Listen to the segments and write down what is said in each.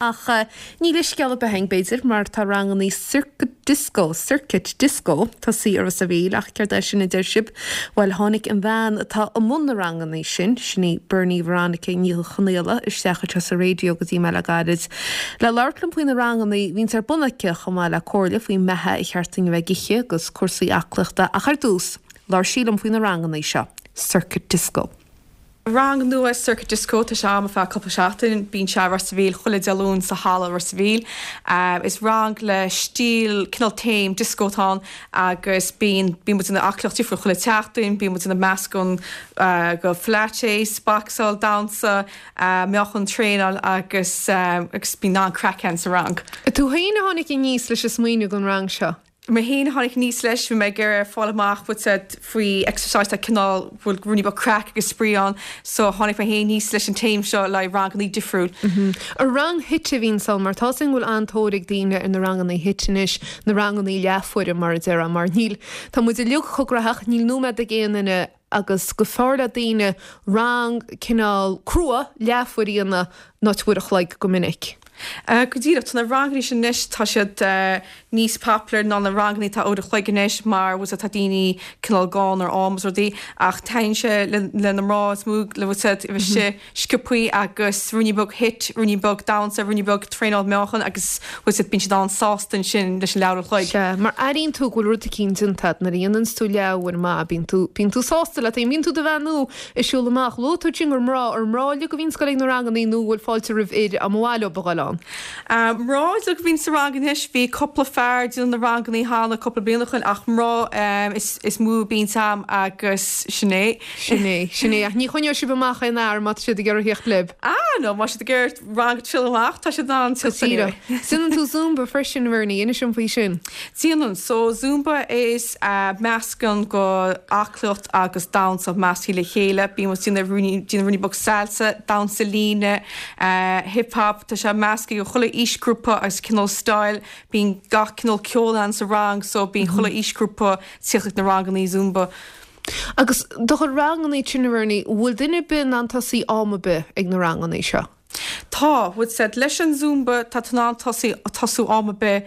Ach ní leithscéal ar bith againn, b'fhéidir, mar tá rangannaí Circuit Disco, Circuit Disco, tosaithe i Ros a' Mhíl, ach céard é sin a deir sibh? Bhuel, tháinig an bhean atá i mbun na rangannaí sin, sin í Bernie Veronica Ní Chonaola, isteach anseo sa raidió go dtí mé le gairid le labhairt liom faoi na rangannaí a bhíonns ar bun aici, chomh maith le comhairle faoin mbeatha ar cheart dúinn a bheith ag ithe agus cúrsaí aclaíochta, ach ar dtús, labhair sí liom faoi na rangannaí seo, Circuit Disco. Rang nua Circuit Disco, tá sé a'm ar feadh cúpla seachtain, bíonn sé i Ros a' Mhíl chuile Dé Luain sa halla Ros a' Mhíl. Is rang le stíl cineál theme disco atá ann agus bíonn bíonn muid ag déanamh aclaíocht difriúil chuile tseachtain, bíonn muid ag déanamh meascán go pilates, boxáil, damhsa, meáchan traenáil agus agus bíonn an-craic ann sa rang. Tú féin a tháinig aníos leis an smaoineamh don rang seo? Mé féin a tháinig aníos leis, bhí mé ag iarraidh fáil amach bhfuil a fhios a'd faoi exercise tá cineál, bhfuil ruainnín beag craic agus spraoi ann so tháinig mé féin aníos leis an theme seo le haghaidh rangannaí difriúil. An rang HIIT a bhíonns ann mar tá 'fhios a'm go bhfuil an-tóir ag daoine ar na rangannaí HIIT anois, na rangannaí leathuaire mar a déarfá mar níl, tá muid uilig chomh gnaitheach, níl nóiméad ag aon duine agus go b'fhearr le daoine rang cineál crua leathuair a dhéanamh ná uair a chloig go minic. Go díreach, tá na rangannaí sin anois, tá siad níos popular ná na rangannaí atá uair a chloig anois mar bhfuil a fhios a'd tá daoine cineál gann ar am is rudaí ach taitníonn sé le na mná is mó le bhfuil a fhios a'd bheith istigh sciobthaí agus ruainnín beag HIIT, ruainnín beag damhsa, ruainnín beag traenáil meáchan agus bhfuil a fhios a'd bíonn siad an-sásta ansin leis an leathuair a chloig. Sea, mar airíonn tú go bhfuil rud eicínt déanta a'd nuair a dhéananns tú leathuair maith, bíonn tú, bíonn tú sásta leat féin, bíonn tú do bheannú ag siúl amach. Luaigh tú ansin gur mná, ar mná uilig a bhíonns ag goil ag na rangannaí nó an bhfuil fáilte roimh fhir dá mba mhaith leo a ghoil ann? Mná uilig a bhíonn sa rang anois, bhí cúpla fear ag déanamh na rangannaí cheana cúpla bliain ó shoin ach mná is mó a bhíonns a'm agus sin é. Sin é, sin é. Ach ní choinneoidh sibh amach aon fhear má tá siad ag iarraidh theacht libh. Ah, no, má tá siad ag iarraidh rang a triail amach, tá siad in ann teacht anyway. Déanann tú Zumba freisin, a Bhernie, inis dom faoi sin. Déanann. So, Zumba is meascán go aclaíocht agus damhsa measctha le chéile. Bíonn muid déanamh ruainnín, déanamh ruainnín beag salsa, damhsa líne, hip hop, tá sé measctha go chuile aoisghrúpa agus cineál style. Bíonn gach cineál ceol ann sa rang, so bíonn chuile aoisghrúpa ag tíocht ag na rangannaí Zumba. Agus do chuid rangannaí sin, a Bhernie, bhfuil duine ar bith in ann tosaí am ar bith ag na rangannaí seo? Tá, bhfuil a fhios a'd, leis an Zumba tá tú in ann tosaí, tosú am ar bith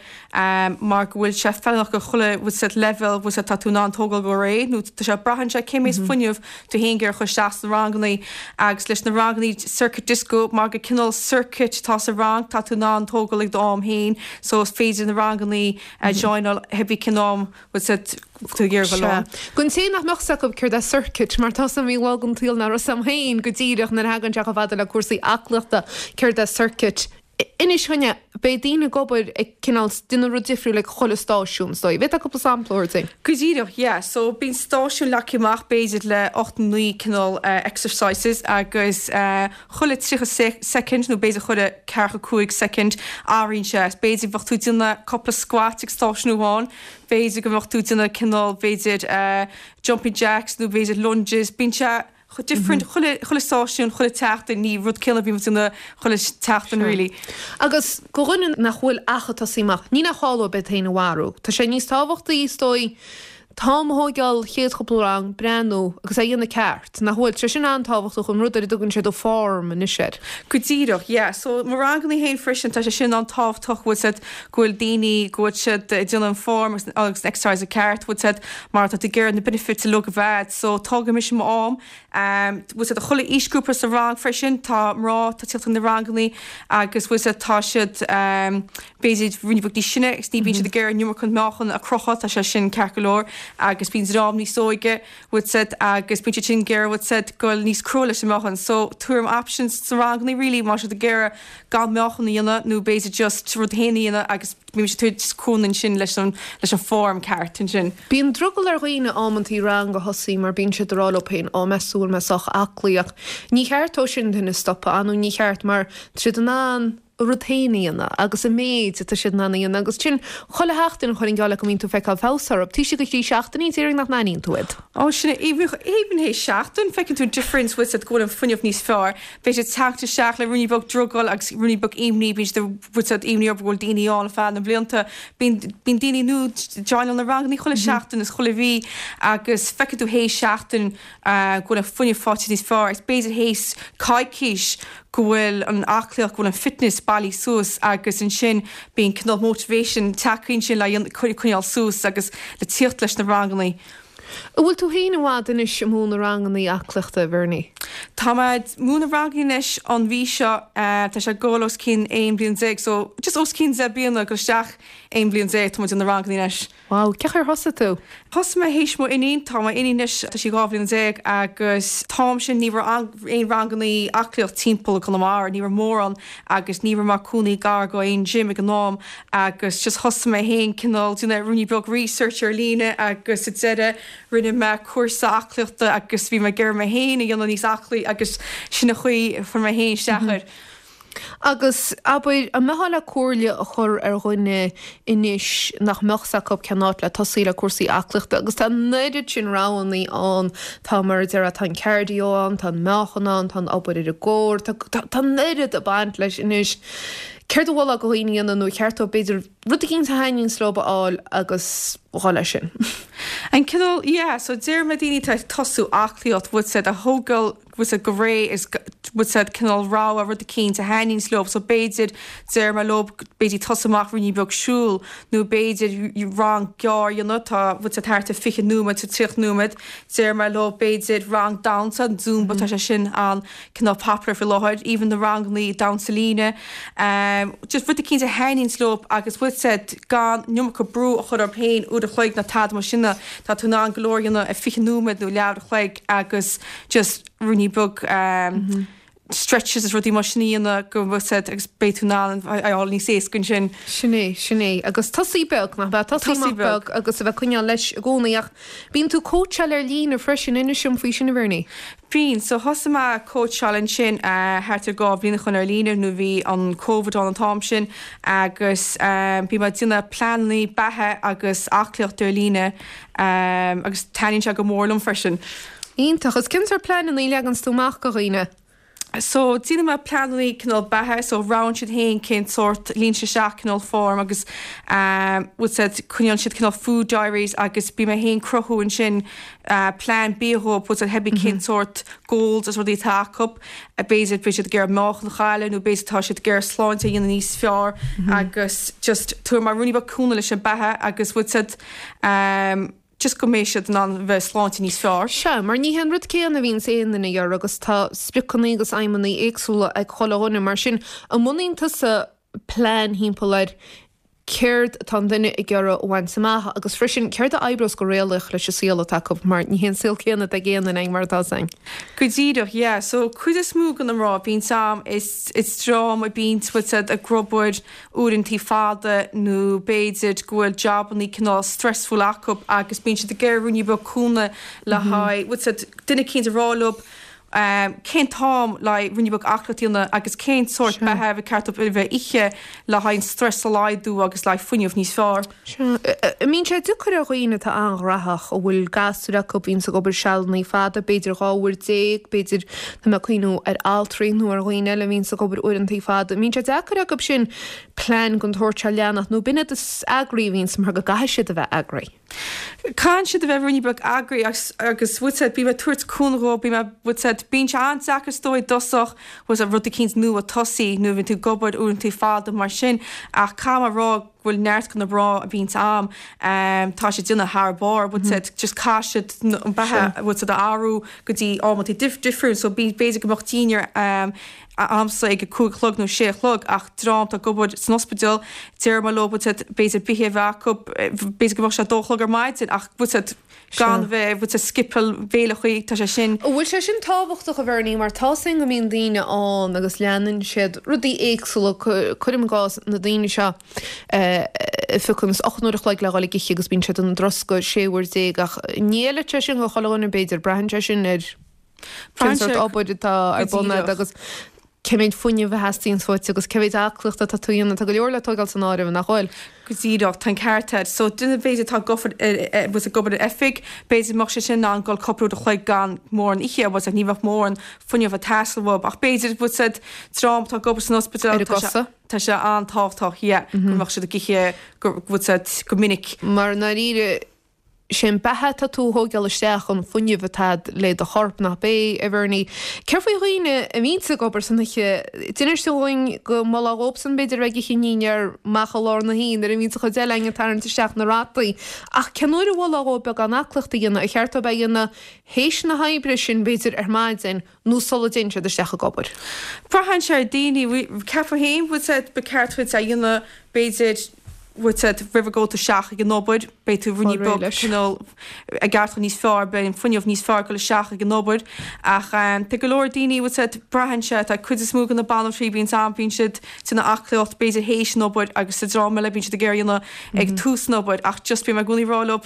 mar go bhfuil sé feiliúnach go chuile, bhfuil a fhios a'd, leibhéal, bhfuil a fhios a'd, tá tú in ann tógáil go réidh nó tá sé, braitheann sé cé méid fuinneamh tú féin ag iarraidh a chur isteach sna rangannaí agus leis na rangannaí circuit disco mar gur cineál circuit atá sa rang tá tú in ann tógáil ag do am féin so is féidir na rangannaí a joináil cibé cén am bhfuil a fhios a'd tú ag iarraidh dul ann. Don té nach mbeadh 's acu céard é circuit, mar tá 's a'm bhí lá den tsaol nach raibh 's a'm féin go díreach nuair a thagann sé chomh fada le cúrsaí aclaíochta, céard é circuit. Inis dúinne, beidh daoine ag obair ag cineál déanamh rud difriúil ag chuile stáisiún, is dóigh. Bhféadfá cúpla sampla a thabhairt dúinn? Go díreach, yeah. So bíonn stáisiún leagtha amach b'fhéidir le 8 nó 9 cineál exercises agus chuile 30 soicind nó b'fhéidir chuile 45 soicind athraíonn sé. B'fhéidir bheadh tú ag déanamh cúpla squat ag stáisiún amháin, B'fhéidir go mbeadh tú ag déanamh cineál, b'fhéidir jumping jacks nó b'fhéidir lunges, bíonn sé different chuile, chuile stáisiún, chuile tseachtain, ní rud céanna a bhíonn muid ag déanamh chuile tseachtain really. Agus do dhuine nach bhfuil ach ag tosaí amach, ní nach call dóibh iad féin a mharú. Tá sé níos tábhachtaí, is dóigh, t-am a thóigeáil chéad chúpla rang, breathnú agus é a dhéanamh ceart, nach bhfuil? Tá sé sin an-tábhachtach, an rud ar a dtugann siad an form anois air. Go díreach, yeah. So mo rangannaí féin freisin, tá sé sin an-tábhachtach, bhfuil a fhios a'd, go bhfuil daoine, go bhfuil siad ag déanamh an form agus agus an exercise ceart, bhfuil a fhios a'd, mar tá tú ag iarraidh na benefits uilig a bheith a'd. So tógfaidh mise m'am, bhfuil a fhios a'd, chuile aoisghrúpa sa rang freisin, tá mná, tá tíocht chun na rangannaí agus bhfuil a fhios a'd, tá siad, b'fhéidir ruainnín beag níos sine agus ní bhíonn siad ag iarraidh an iomarca meáchan a chrochadh, tá sé sin ceart go leor agus bíonn dream níos óige, bhfuil a fhios a'd, agus bíonn siad sin ag iarraidh, bhfuil a fhios a'd, goil níos crua leis an meáchan. So tabhraim options sna rangannaí really má tá siad ag iarraidh gan meáchan a dhéanamh nó b'fhéidir just rud féin a dhéanamh agus bíonn siad ag tabhairt cúnamh ansin leis an leis an form ceart ansin. Bíonn drogall ar dhaoine amantaí rang a thosaí mar bíonn siad ag rá leo féin, á meas tú an bhfuil mé sách aclaí ach ní cheart dó sin duine a stopadh, ah nó ní cheart mar tá siad in ann a rud féin a dhéanamh agus an méid atá siad in ann a dhéanamh agus sin chuile sheachtain chuirfinn geall leat go mbíonn tú ag feiceáil feabhas orthu. Taobh istigh de thrí seachtainí déarfainn nach n-aithníonn tú iad. Ó sin é, even théis seachtain feiceann tú an difference bhfuil a fhios a'd go bhfuil an fuinneamh níos fearr. Beidh siad teacht isteach le ruainnín beag drogall agus ruainnín beag imní, bíonn siad bhfuil a fhios a'd imní orthu go bhfuil daoine ann ar feadh na blianta. Bíonn bíonn daoine nua joináil na rangannaí chuile seachtain is chuile mhí agus feiceann tú théis seachtain go bhfuil an fuinneamh faighte níos fearr agus b'fhéidir théis coicís. go bhfuil an aclaíocht, go bhfuil an fitness bailithe suas agus ansin bíonn cineál motivation tagtha ansin le coinneáil suas agus le tíocht leis na rangannaí. An bhfuil tú féin i bhfad anois ag múineadh rangannaí aclaíochta, a Bhernie? Tá mé ag múineadh rangannaí anois an mhí seo, tá sé ag gabháil os cionn 11 bliain, so just os cionn 10 bliana, ag dul isteach 11 bliain tá mé ag déanamh na rangannaí anois. Wow, cén chaoi ar thosaigh tú? Thosaigh mé théis mo iníon, tá mo iníon anois, tá sí 12 bhliain agus t-am sin ní raibh aon rangannaí aclaíocht timpeall i gConamara, ní raibh mórán agus ní raibh mé cónaí gar go aon gym ag an am agus just thosaigh mé féin cineál déanamh ruainnín beag research ar líne agus sa deireadh rinne mé cúrsa aclaíochta agus bhí mé ag iarraidh mé féin a dhéanamh níos aclaí agus sin an chaoi a fuair mé féin isteach air. Agus, abair, an mbeifeá le comhairle a chur ar dhuine anois nach mbeadh 's acu cén áit le tosaí le cúrsaí aclaíochta agus tá an oiread sin roghannaí ann, tá mar a déarfá, tá an cardio ann, tá an meáchan ann, tá an obair ar an gcore, tá, tá, tá an oiread ag baint leis anois. Céard a mholfá do dhaoine a dhéanamh nó ar cheart dóibh b'fhéidir rud eicínt a thaitníonns leo a fháil agus dhul leis sin? An cineál, yeah, so deir mé daoine atá ag tosú aclaíocht, bhfuil 's agat, a thógáil, bhfuil 's agat go réidh is bhfuil 's agat cineál rogha rud eicínt a thaitníonns leo so b'fhéidir deir mé leo b'fhéidir tosú amach ruainnín beag siúl nó b'fhéidir rang gearr a dhéanamh tá bhfuil 's agat thart ar 20 nóiméad to 30 nóiméad deir mé leo b'fhéidir rang damhsa an zumba tá sé sin an cineál popular faoi láthair even na rangannaí damhsa líne just rud eicínt a thaitníonns leo agus bhfuil 's agat gan an iomarca brú a chur orthu féin uair a chloig nó tada mar sin tá tú in ann go leor a dhéanamh i 20 nóiméad nó leathuair a chloig agus just ruainnín beag stretches is rudaí mar sin a dhéanamh go bhfuil 's agat agus beidh tú in ann a fháil níos éasca ansin. Sin é, sin é. Agus tosaí beag, nach ea? Tosaí amach beag agus a bheith ag coinneáil leis i gcónaí. Ach bíonn tú ag cóitseáil ar líne freisin, inis dom faoi sin a Bhernie. Bíonn. So thosaigh mé ag cóitseáil ansin thart ar 2 bhliain ó shoin ar líne nuair bhí an Covid ann an t-am sin agus bhí mé ag déanamh pleanannaí beatha agus aclaíocht ar líne agus taitníonn sé go mór liom freisin. Iontach. Agus cén sórt pleanannaí a leaganns tú amach do dhaoine? So déanann mé pleanannaí cineál beatha so roghnaíonn siad féin cén sórt, líonann siad isteach cineál form agus bhfuil 's agat coinneálann siad cineál food diaries agus bíonn mé féin cruthú ansin plean bia dhóibh bhfuil 's agat cibé cén sórt goals is rudaí atá acu b'fhéidir beidh siad ag iarraidh meáchan a chailleadh nó b'fhéidir tá siad ag iarraidh sláinte a dhéanamh níos fearr agus just tabharfaidh mé ruainnín beag cúnamh leis an beatha agus bhfuil 's agat just go mbeidh siad in ann bheith sláinte níos fearr. Sea, mar ní hé an rud céanna a bhíonns aon duine ag iarraidh agus tá spriocanna agus aidhmeanna éagsúla ag chuile dhuine. Mar sin, an mbunaíonn tusa plean thimpeall ar céard atá an duine ag iarraidh a bhaint amach agus freisin céard a oibreos go réalaíoch leis an saol atá acu mar ní hé an saol céanna atá ag aon duine mar atá 's againn. Go díreach, yeah. So cuid is mó de na mná a bhíonns a'm is is dream a bíonns bhfuil 's agat ag obair uaireantaí fada nó b'fhéidir go bhfuil jabannaí cineál stressful acu agus bíonn siad ag iarraidh ruainnín beag cúnamh le haghaidh bhfuil 's agat duine eicínt a rá leo cén t-am le haghaidh ruainnín beag aclaíocht a dhéanamh agus cén sórt beatha ba cheart dóibh a bheith ithe le haghaidh an stress a laghdú agus le haghaidh fuinneamh níos fearr. Sea. An mbíonn sé deacair ar dhaoine atá an-ghnaitheach, a bhfuil gasúir acu, a bhíonns ag obair sealannaí fada, b'fhéidir 12 uair, b'fhéidir, tá mé ag cuimhniú ar altraí nó ar dhaoine eile a bhíonns ag obair uaireantaí fada, an mbíonn sé deacair acu sin plean den tsórt seo a leanacht nó b'in iad is eagraí a bhíonns mar go gcaithfidh siad a bheith eagraí? Caitheann siad a bheith ruainnín beag eagraí agus agus bhfuil 's agat bím ag tabhairt cúnamh dhóibh, bím ag bhfuil 's agat bíonn sé an-deacair is dóigh i dtosach bhfuil 's agat rud eicínt nua tosaí nuair a bhíonn tú ag obair uaireantaí fada mar sin ach caithfidh mé a rá go bhfuil neart de na mná a bhíonns a'm tá siad ag déanamh thar barr bhfuil 's agat just caithfidh siad an beatha bhfuil 's agat a athrú go dtí amantaí difriúil so b'fhéidir go mbeadh dinnéar a'msa ag a 5 a chlog nó 6 a chlog ach dream atá ag obair san ospidéal, deir mé leo bhfuil 's agat b'fhéidir bithe a bheith acu, b'fhéidir go mbeadh sé a 2 a chlog ar maidin ach bhfuil 's agat gan bheith, bhfuil 's agat skipeáil béileachaí, tá sé sin. An bhfuil sé sin tábhachtach a Bhernie mar tá 's againn go mbíonn daoine ann agus leanann siad rudaí éagsúla, cuirim i gcás na daoine seo a phiocann 8 n-uair a chloig le dhul ag ithe agus bíonn siad ina dtroscadh 16 uair ach ní fheilfeadh sé sin do chuile dhuine b'fhéidir, braitheann sé sin ar Cén sórt obair atá ar bun agat agus cé mhéad fuinnimh a theastaíonns uait agus cé mhéad aclaíochta atá tú a dhéanamh. Tá go leor le tógáil san áireamh, nach bhfuil? Go díreach, tá an ceart agat. So duine b'fhéidir atá ag obair bhfuil 's ag obair in oifig, b'fhéidir go mbeadh sé sin in ann dul cúpla uair a chloig gan mórán ithe, bhfuil 's agat ní bheadh mórán fuinneamh ag teastáil uathu. Ach b'fhéidir bhfuil 's agat dream atá ag obair san ospidéal, Ar a gcosa. tá sé an-tábhachtach, yeah, go mbeadh siad ag ithe go bhfuil 's agat go minic. Mar i ndáiríre. Sé an beatha atá tú a thóigeáil isteach, an fuinneamh atá a'd le do chorp, nach b'é, a Bhernie? Céard faoi dhaoine a bhíonns ag obair san oíche? D'inis tú dhúinn go molfá dhóibhsan b'fhéidir a bheith ag ithe an dinnéar amach i lár na hoíche nuair a bhíonns an chuid eile againn ag tarraingt isteach na rataí. Ach cén uair a mholfá dhóibh beagán aclaíochta a dhéanamh? Ar cheart dóibh é a dhéanamh théis na hoibre sin b'fhéidir ar maidin nó sula dtéann siad isteach ag obair? Braitheann sé ar daoine. Ceapaim féin, bhfuil 's a'd, ba ceart duit é a dhéanamh b'fhéidir, bhfuil 's a'd, roimh a gabh tú isteach ag an obair, beidh tú ruainnín beag cineál ag aireachtáil níos fearr, beidh an fuinneamh níos fearr ag dul isteach ag an obair. Ach tá go leor daoine, bhfuil 's a'd, braitheann sé, tá cuid is mó de na banaltraí, bíonn am, bíonn siad ag déanamh aclaíocht b'fhéidir théis an obair agus sa dream eile bíonn siad ag iarraidh a dhéanamh ag tús an obair ach just bím i gcónaí ag rá leo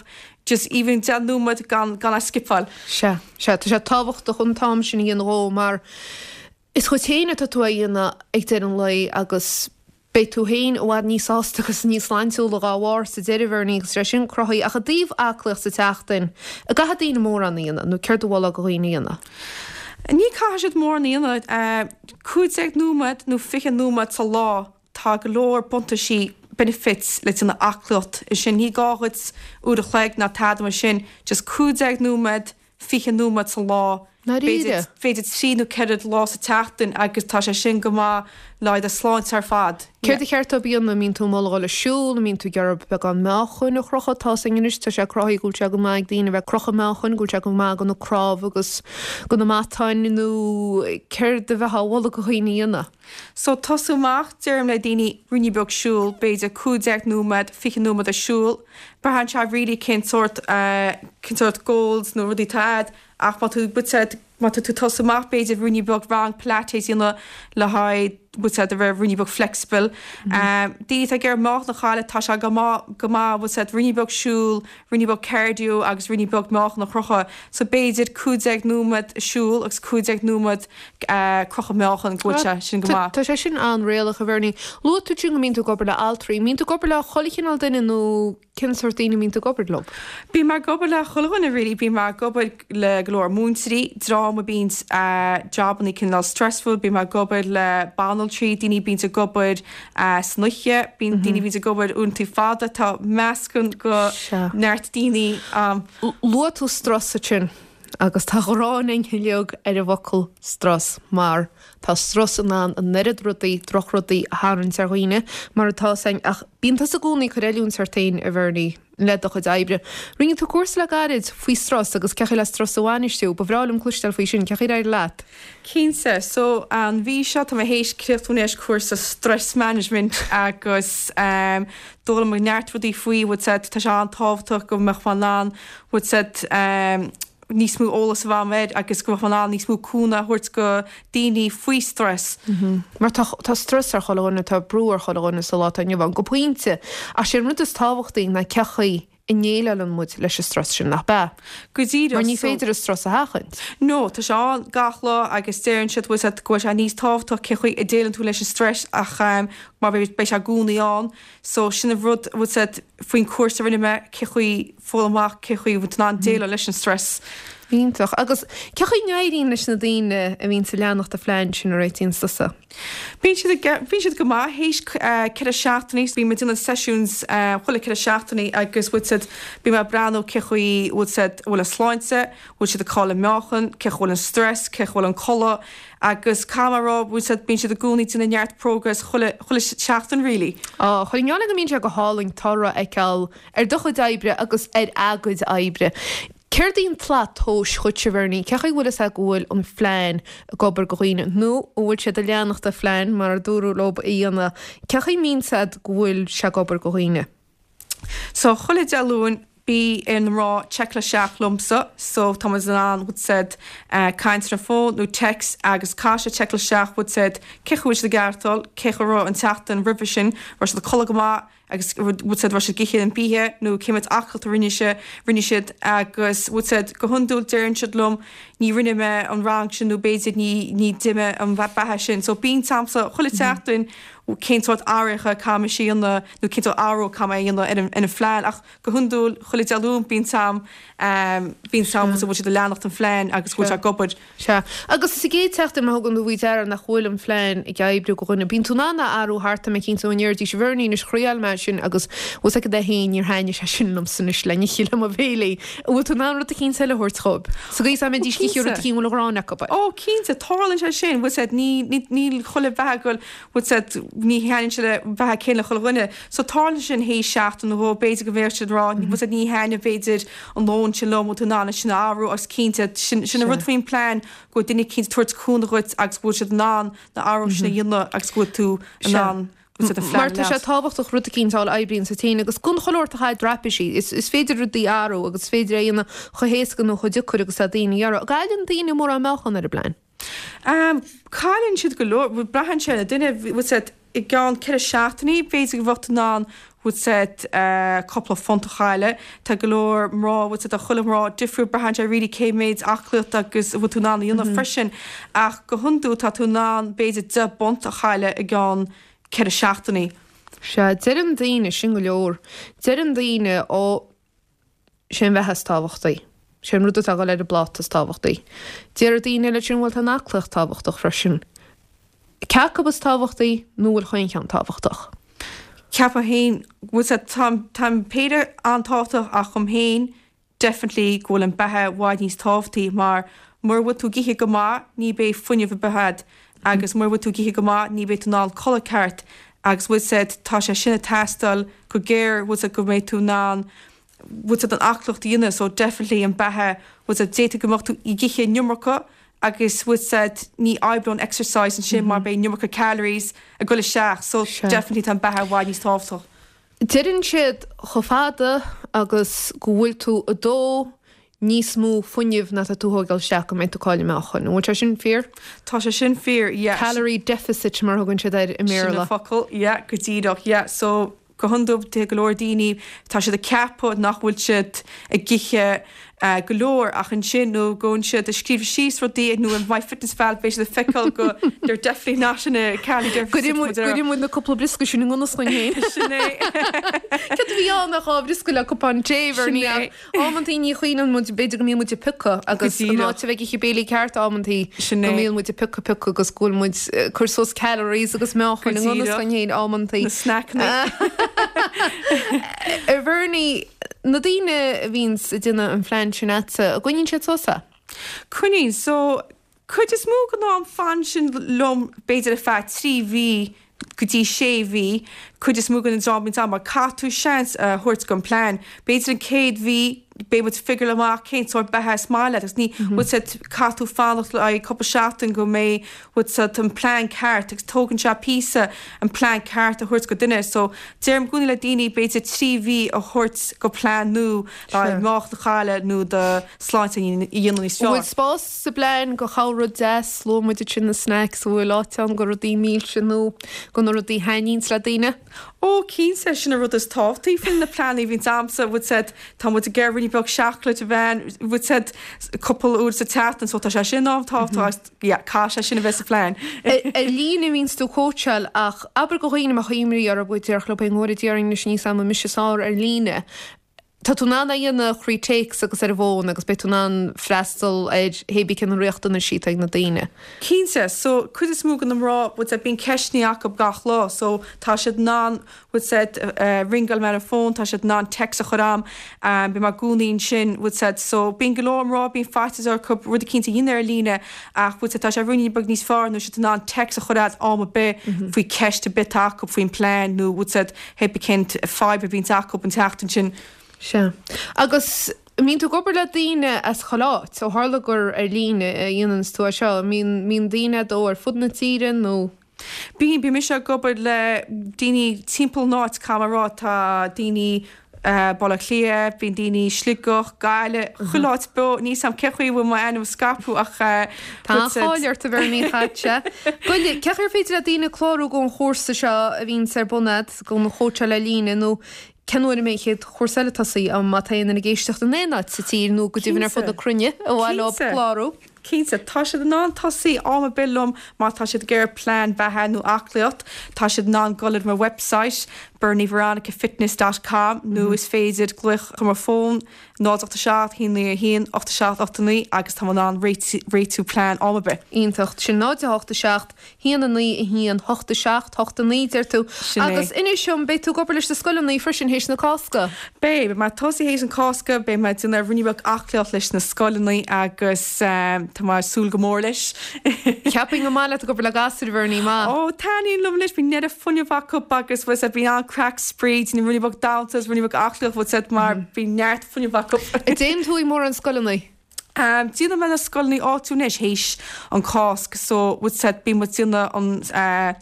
just even 10 nóiméad gan gan é skipáil. Sea, sea, tá sé tábhachtach an t-am sin a dhéanamh dhó mar Is dhuit féin atá tú á dhéanamh ag deireadh an lae agus beidh tú féin i bhfad níos sásta agus níos sláintiúla dhá bharr sa deireadh, Bhernie, agus sé sin cruthaithe. Ach i dtaobh aclaíocht sa tseachtain, an gcaithfidh daoine mórán a dhéanamh nó céard a mholfá do dhaoine a dhéanamh? Ní caithfidh siad mórán a dhéanamh. 15 nóiméad nó 20 nóiméad sa lá, tá go leor buntaisí, benefits, le déanamh aclaíocht. Sin, ní gá dhuit uair a chloig ná tada mar sin, just 15 nóiméad, 20 nóiméad sa lá, b'fhéidir, b'fhéidir 3 nó 4 lá sa tseachtain agus tá sé sin go maith le haghaidh do shláinte ar fad. Céard a cheart dóibh a dhéanamh? An mbíonn tú ag moladh dhul ag siúl? An mbíonn tú ag iarraidh beagán meáchain a chrochadh? Tá 's againn anois, tá sé cruthaithe go bhfuil sé go maith ag daoine a bheith ag crochadh meáchain, go bhfuil sé go maith do na cnámha agus do na matáin nó céard a bheifeá a mholadh do dhaoine a dhéanamh? So tosú amach, deirim le daoine ruainnín beag siúl, b'fhéidir 15 nóiméad, 20 nóiméad ag siúl. Braitheann sé really cén sórt, cén sórt goals nó rudaí atá a'd ach má tú, bhfuil 's a'd, má tá tú ag tosú amach b'fhéidir ruainnín beag rang pilates a dhéanamh le haghaidh, bhfuil 's a'd, a bheith ruainnín beag flexible. Daoine atá ag iarraidh meáchan a chailleadh, tá sé go maith, go maith, bhfuil 's a'd, ruainnín beag siúl, ruainnín beag cardio agus ruainnín beag meáchan a chrochadh. So b'fhéidir 15 nóiméad siúl agus 15 nóiméad crochadh meáchan go bhfuil sé sin go maith. Tá sé sin an-réalach, a Bhernie. Luaigh tú ansin go mbíonn tú ag obair le altraí. An mbíonn tú ag obair le chuile chineál duine nó cén sórt daoine a mbíonn tú ag obair leo? Bím ag obair le chuile dhuine really. Bím ag obair le go leor múinteoirí, dream a bíonn jabannaí cineál stressful, bím ag obair le banaltraí, daoine a bíonns ag obair san oíche, bíonn daoine a bhíonns ag obair uaireanta fada, tá meascán go neart daoine ann. Luaigh tú strus ansin agus tá gráin againn uilig ar an bhfocal strus mar tá strus in ann an oiread rudaí, drochrudaí a tharraingt ar dhaoine mar atá 's againn ach bíonn tusa i gcónaí ag cur oiliúint ort féin a Bhernie le do chuid oibre. Rinne tú cúrsa le gairid faoi strus agus cén chaoi le strus a bhainistiú. Ba bhreá liom cloisteáil faoi sin, cén chaoi ar éirigh leat? Cinnte. So, an mhí seo tá mé théis críochnú anois cúrsa stress management agus d'fhoghlaim mé neart rudaí faoi, bhfuil 's a'd, tá sé an-tábhachtach go mbeadh mé in ann, bhfuil 's a'd, níos mó eolas a bheith agam air agus go mbeadh mé in ann níos mó cúnamh a thabhairt go daoine faoi stress. Mar tá, tá strus ar chuile dhuine, tá brú ar chuile dhuine sa lá atá inniu ann, go pointe. Ach sé an rud is tábhachtaí ná cén chaoi a ndéileálann muid leis an strus sin, nach b'ea? Go díreach. Mar ní féidir an strus a sheachaint. No, tá sé ann gach lá agus deireann siad, bhfuil 's a'd, go bhfuil sé níos tábhachtach cén chaoi a déileann tú leis an stress ach mar beidh sé i gcónaí ann. So sin an rud, bhfuil 's a'd, faoin cúrsa a rinne mé, cén chaoi, foghlaim amach cén chaoi a bhfuil tú in ann déileáil leis an stress. Iontach. Agus cén chaoi a n-éiríonn leis na daoine a bhíonns ag leanacht an phlean sin a réitíonn tusa? Bíonn siad ag, bíonn siad go maith théis 4 seachtainí, bíonn muid ag déanamh sessions chuile 4 seachtainí agus bhfuil 's a'd, bíonn mé ag breathnú cén chaoi bhfuil 's a'd, bhfuil a sláinte, bhfuil siad ag cailleadh meáchan, cén chaoi bhfuil an stress, cén chaoi bhfuil an codladh agus caithfidh mé a rá, bhfuil 's a'd, bíonn siad i gcónaí ag déanamh neart progress chuile, chuile seachtain really. Á, chuir an go mbíonn sé go hálainn toradh a fheiceáil ar do chuid oibre agus ar a gcuid oibre. Céard í an tslat tomhais dhuitse, Bhernie? Cén chaoi a bhfuil fhios agat go bhfuil an phlean ag obair go dhaoine nó an bhfuil siad ag leanacht an phlean mar a dúradh leo a dhéanamh? Cén chaoi a mbíonn 's agat go bhfuil sé ag obair go dhaoine? So chuile Dé Luain bíonn ar na mná checkáil isteach liomsa so tá muid in ann bhfuil 's a'd caint ar an fón nó text agus caithfidh siad checkáil isteach bhfuil 's a'd cén chaoi bhfuil siad ag aireachtáil, cén chaoi a raibh an tseachtain roimhe sin, raibh siad ag codladh go maith agus bhfuil 's a'd raibh siad ag ithe an bia nó cé mhéad aclaíocht a rinne sé, rinne siad agus bhfuil 's a'd go hiondúil deireann siad liom ní rinne mé an rang sin nó b'fhéidir ní ní d'ith mé an beatha sin so bíonn agamsa chuile tseachtain. cén sórt athruithe a caithfidh mise a dhéanamh nó cén sórt athrú a caithfidh mé a dhéanamh ar an ar an phlean ach go hiondúil chuile Dé Luain bíonn am bíonn am go bhfuil siad ag leanacht an phlean agus go bhfuil sé ag obair. Sea. Agus sa gcéad tseachtain má thugann tú faoi deara nach bhfuil an phlean ag oibriú go dhuine, bíonn tú in ann a athrú thart tá mé cinnte ó ndéarfaidís a Bhernie anois thriáil mé sin agus bhfuil 's agat é féin níor thaitnigh sé sin liomsa anois le n-ithe le mo bhéilí. An bhfuil tú in ann rud eicínt eile a thabhairt dhóibh? Sa gcaoi is dá mbeidís ag ithe rud eicínt a bhfuil an ghráin acu air. Ó cinnte, tarlaíonn sé sin, bhfuil 's agat, ní, ní, níl chuile bheatha ag goil, bhfuil 's agat, ní thaitníonn sé le beatha céanna le chuile dhuine. So tarlaíonn sé sin théis seachtain nó dhó, b'fhéidir go mbeadh siad ag rá, bhfuil 's agat, ní thaitnigh b'fhéidir an lón sin liom, bhfuil tú in ann é sin a athrú agus cinnte, sin, sin an rud faoin plean, go bhfuil duine eicínt ag tabhairt cúnamh dhuit agus go bhfuil siad in ann na athruithe sin a dhéanamh agus go bhfuil tú in ann Mar tá sé tábhachtach rud eicínt a fháil a oibríonns duit féin agus don chuile shórt a chaith traipisí. Is féidir rudaí a athrú agus is féidir é a dhéanamh chomh héasca nó chomh deacair agus atá daoine a iarraidh. An gcailleann daoine mórán meáchan ar an bplean? Cailleann siad go leor, braitheann sé ar an duine, bhfuil 's agat, i gceann 4 seachtainí b'fhéidir go bheadh tú in ann, bhfuil 's agat, cúpla phunt a chailleadh. Tá go leor mná, bhfuil 's agat, tá chuile mná difriúil, braitheann sé really cé méid aclaíocht agus a bhfuil tú in ann a dhéanamh freisin. Ach go hiondúil tá tú in ann b'fhéidir 10 bpunt a chailleadh i gceann 4 seachtainí. Sea, deireann daoine, sin go leor, deireann daoine, ó, sé an bheatha is tábhachtaí, sé an rud atá ag dul ar an bpláta is tábhachtaí. Déarfaidh daoine eile sin, bhuel tá an aclaíocht tábhachtach freisin. Cé acu is tábhachtaí nó bhfuil chaon cheann tábhachtach? Ceapaim féin, bhfuil 's agat, tá, tá an péire an-tábhachtach ach dhom féin, definitely go bhfuil an beatha i bhfad níos tábhachtaí mar mura bhfuil tú ag ithe go maith ní beidh fuinneamh ar bith a'd agus mura bhfuil tú ag ithe go maith ní beidh tú in ann codladh ceart agus bhfuil 's a'd tá sé sin ag teastáil go géar bhfuil 's a'd go mbeidh tú in ann bhfuil 's a'd an aclaíocht a dhéanamh so definitely an beatha bhfuil 's a'd d'fhéadfadh go mbeadh tú ag ithe an iomarca agus bhfuil 's a'd ní oibreoidh an exercise ansin mar beidh an iomarca calories ag goil isteach so definitely tá an beatha i bhfad níos tábhachtach. Deireann siad chomh fada agus go bhfuil tú ag dó níos mó fuinnimh ná tá tú a thógáil isteach go mbeidh tú ag cailleadh meáchain. An bhfuil sé sin fíor? Tá sé sin fíor, yeah. Calorie deficit mar a thugann siad air i mBéarla. Sin an focal, yeah, go díreach, yeah. So, go hiondúil, tá go leor daoine, tá siad ag ceapadh nach bhfuil siad ag ithe go leor ach ansin nuair a ghabhann siad ag scríobh síos rudaí nó in MyFitnessPal beidh siad ag feiceáil go they're definitely not in a calorie deficit. Go muid na cúpla briosca sin i ngan fhios dhúinn féin. Sin é. Céard a bhí ann ach dhá bhriosca le cupán tae Bhernie ach amantaí ní chuimhníonn muid b'fhéidir go mbíonn muid ag piocadh agus in áit a bheith ag ithe béilí ceart amantaí go mbíonn muid ag piocadh piocadh agus go bhfuil muid ag cur suas calories agus meáchain i ngan fhios dhúinn féin amantaí. Na snackanna. A Bhernie, Na daoine a bhíonns ag déanamh an phlean sin a'dsa, an gcoinníonn siad suas é? Coinníonn. So, cuid is mó den am fanann siad liom b'fhéidir ar feadh 3 mhí go dtí 6 mhí, cuid is mó den dream a bhíonns a'm mar caithfidh tú seans a thabhairt don plean. B'fhéidir an chéad mhí beidh muid ag figure amach cén sórt beatha is maith leat agus ní, bhfuil 's a'd, caithfidh tú fanacht le haghaidh cúpla seachtain go mbeidh, bhfuil 's a'd, an plean ceart agus tógann sé píosa an plean ceart a thabhairt go duine so deirim i gcónaí le daoine b'fhéidir 3 mhí a thabhairt go plean nua le haghaidh meáchan a chailleadh nó do shláinte a dhéanamh níos fearr. An bhfuil spás sa bplean go chuile rud deas, luaigh muid ansin na snacks, an bhfuil áit ann go rudaí milse nó go na rudaí a thaitníonns le daoine? Ó cinnte, sin an rud is tábhachtaí faoi na pleananna a bhíonns a'msa, bhfuil 's a'd, tá muid ag iarraidh ruainnín beag seacláid a bheith, bhfuil 's a'd, cúpla uair sa tseachtain so tá sé sin an-tábhachtach agus yeah, caithfidh sé sin a bheith sa phlean. Ar líne a bhíonns tú ag cóitseáil ach abair go dhaoine a mbeadh imní orthu go déarfadh leo féin go bhfóire Dia orainn anois níl 's a'm an mise is fearr ar líne. Tá tú in ann é a dhéanamh thrí téacs agus ar an bhfón agus beidh tú in ann freastal ar hébí cé na riachtanaisí atá ag na daoine. Cinnte, so cuid is mó de na mná, bhfuil 's a'd, bíonn ceisteanna acu gach lá so tá siad in ann, bhfuil 's a'd, ringeáil mé ar an bhfón, tá siad in ann text a chur a'm, bíonn mé i gcónaí ansin, bhfuil 's a'd, so bíonn go leor mná, bíonn faitíos orthu rud eicínt a dhéanamh ar líne ach bhfuil 's a'd, tá sé ruainnín beag níos fearr nuair siad in ann text a chur a'd am ar bith faoi ceist ar bith atá acu faoin plean nó bhfuil 's a'd, hé bith cén fadhb a bhíonns acu an tseachtain sin. Sea. Agus an mbíonn tú ag obair le daoine as chuile áit? Ó tharla gur ar líne a dhéananns tú é seo, an mbíonn, mbíonn daoine a'd ó ar fud na tíre nó? Bíonn, bíonn mise ag obair le daoine timpeall an áit, caithfidh mé a rá, tá daoine Baile Átha Cliath, bíonn daoine Sligeach, Gaillimh, chuile áit beo, níl 's a'm cén chaoi a bhfuil m'ainm ag scaipeadh ach Tá an-cháil ort a Bhernie chaite. Goile, cén chaoi ar féidir le daoine clárú don chúrsa seo a bhíonns ar bun a'd, don chóitseáil ar líne nó cén uair a mbeidh an chéad chúrsa eile tosaithe, má tá aon duine ag éisteacht in aon áit sa tír nó go deimhin ar fud na cruinne ar mhaith leo clárú? Cinnte, tá siad in ann tosaí am ar bith liom má tá siad ag iarraidh plean beatha nó aclaíocht, tá siad in ann dul ar mo website bernieveronicafitness dot com nó is féidir glaoch ar mo fón 0 8 7 1 9 1 8 7 8 9 agus tá mé in ann réitiú plean am ar bith. Iontach. Sin 0 8 7 1 9 1 8 7 8 9, deir tú. Sin é. Agus inis dom, beidh tú ag obair leis na scoileanna freisin théis na Cásca? Beidh. Beidh mé ag tosaí théis an Cásca, beidh mé ag déanamh ruainne beag aclaíocht leis na scoileanna agus tá mé ag súil go mór leis. Cheapfainn gur maith leat ag obair le gasúir, a Bhernie, maith. Ó, taitníonn liom leis, bíonn neart fuinneamh acu agus bhfuil 's a'd, bíonn an-craic spraoi, déanamh ruainne beag damhsa agus ruainne beag aclaíocht, bhfuil 's a'd, mar bíonn neart fuinneamh acu. An dtéann tú ag mórán scoileanna? Déanann mé na scoileanna áitiúil anois théis an Cásc so bhfuil 's a'd, bíonn muid déanamh an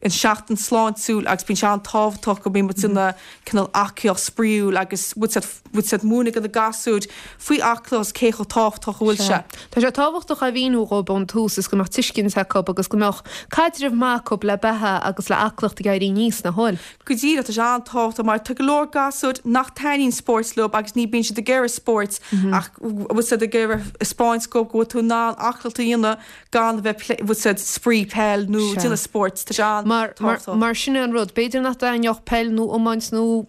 an seachtain sláintiúil agus bíonn sé an-tábhachtach go mbíonn muid déanamh cineál aclaíocht spraíúil agus bhfuil 's a'd, bhfuil 's a'd, múineadh do na gasúir faoi aclaíocht agus cé chomh tábhachtach a bhfuil sé. Tá sé tábhachtach a mhíniú dhóibh ón tús is go mbeadh tuiscint acu agus go mbeadh caidreamh maith acu le beatha agus le aclaíocht ag éirí aníos, nach bhfuil? Go díreach, tá sé an-tábhachtach mar tá go leor gasúir nach taitníonn spóirt leo agus ní bíonn siad ag iarraidh spóirt ach bhfuil 's a'd ag iarraidh 'spáint dhóibh go bhfuil tú in ann aclaíocht a dhéanamh gan a bheith bhfuil 's a'd spraoi peil nó déanamh spóirt. Tá sé an-tábhachtach. Mar sin é an rud, b'fhéidir nach dtaitneodh peil nó iomáint nó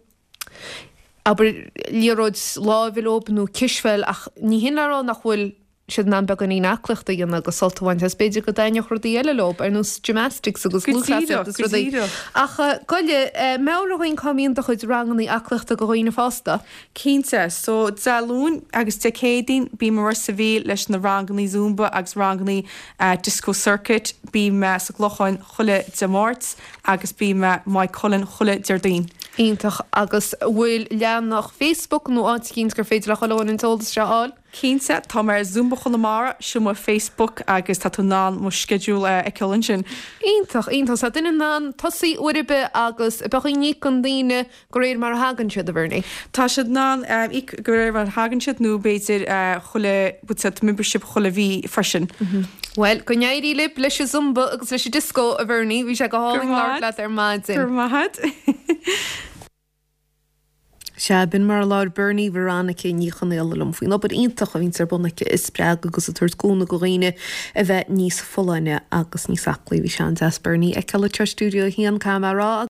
abair liathróid láimhe leob nó cispheil ach ní hin le rá nach bhfuil siad in ann beagáinín aclaíochta a dhéanamh agus sult a bhaint as. B'fhéidir go dtaitneodh rudaí eile leob, ar nós gymnastics agus lúthchleasaíocht agus rudaí. Ach gabh i leith, meabhraigh dhúinn cá mbíonn do chuid rangannaí aclaíochta do dhaoine fásta? Cinnte. So, Dé Luain agus Dé Céadaoin bím i Ros a' Mhíl leis na rangannaí Zumba agus rangannaí Disco Circuit. Bím sa gClochán chuile Dé Máirt agus bím i Maigh Cuilinn chuile Déardaoin. Iontach. Agus an bhfuil leathanach Facebook nó áit eicínt gur féidir le chuile dhuine an t-eolas seo a fháil? Cinnte, tá mé ar Zumba Chonamara, sin mo Facebook agus tá tú in ann mo schedule a fheiceáil ansin. Iontach, iontach. Tá duine in ann tosaí uair ar bith agus bheadh in íocann daoine de réir mar a thagann siad, a Bhernie. Tá siad in ann íoc de réir mar a thagann siad nó b'fhéidir chuile, bhfuil 's a'd, membership chuile mhí freisin. Bhuel, go n-éirí libh leis an Zumba agus leis an Disco, a Bhernie. Bhí sé go hálainn labhairt leat ar maidin. Go raibh maith agat. Sea, b'in mar a labhair Bernie Veronica Ní Chonaola liom faoin obair iontach a bhíonns ar bun aici ag spreagadh agus ag tabhairt cúnamh do dhaoine a bheith níos folláine agus níos aclaí. Bhí sé an-deas Bernie a fheiceáil anseo i Stiúideo 1, caithfidh mé a rá.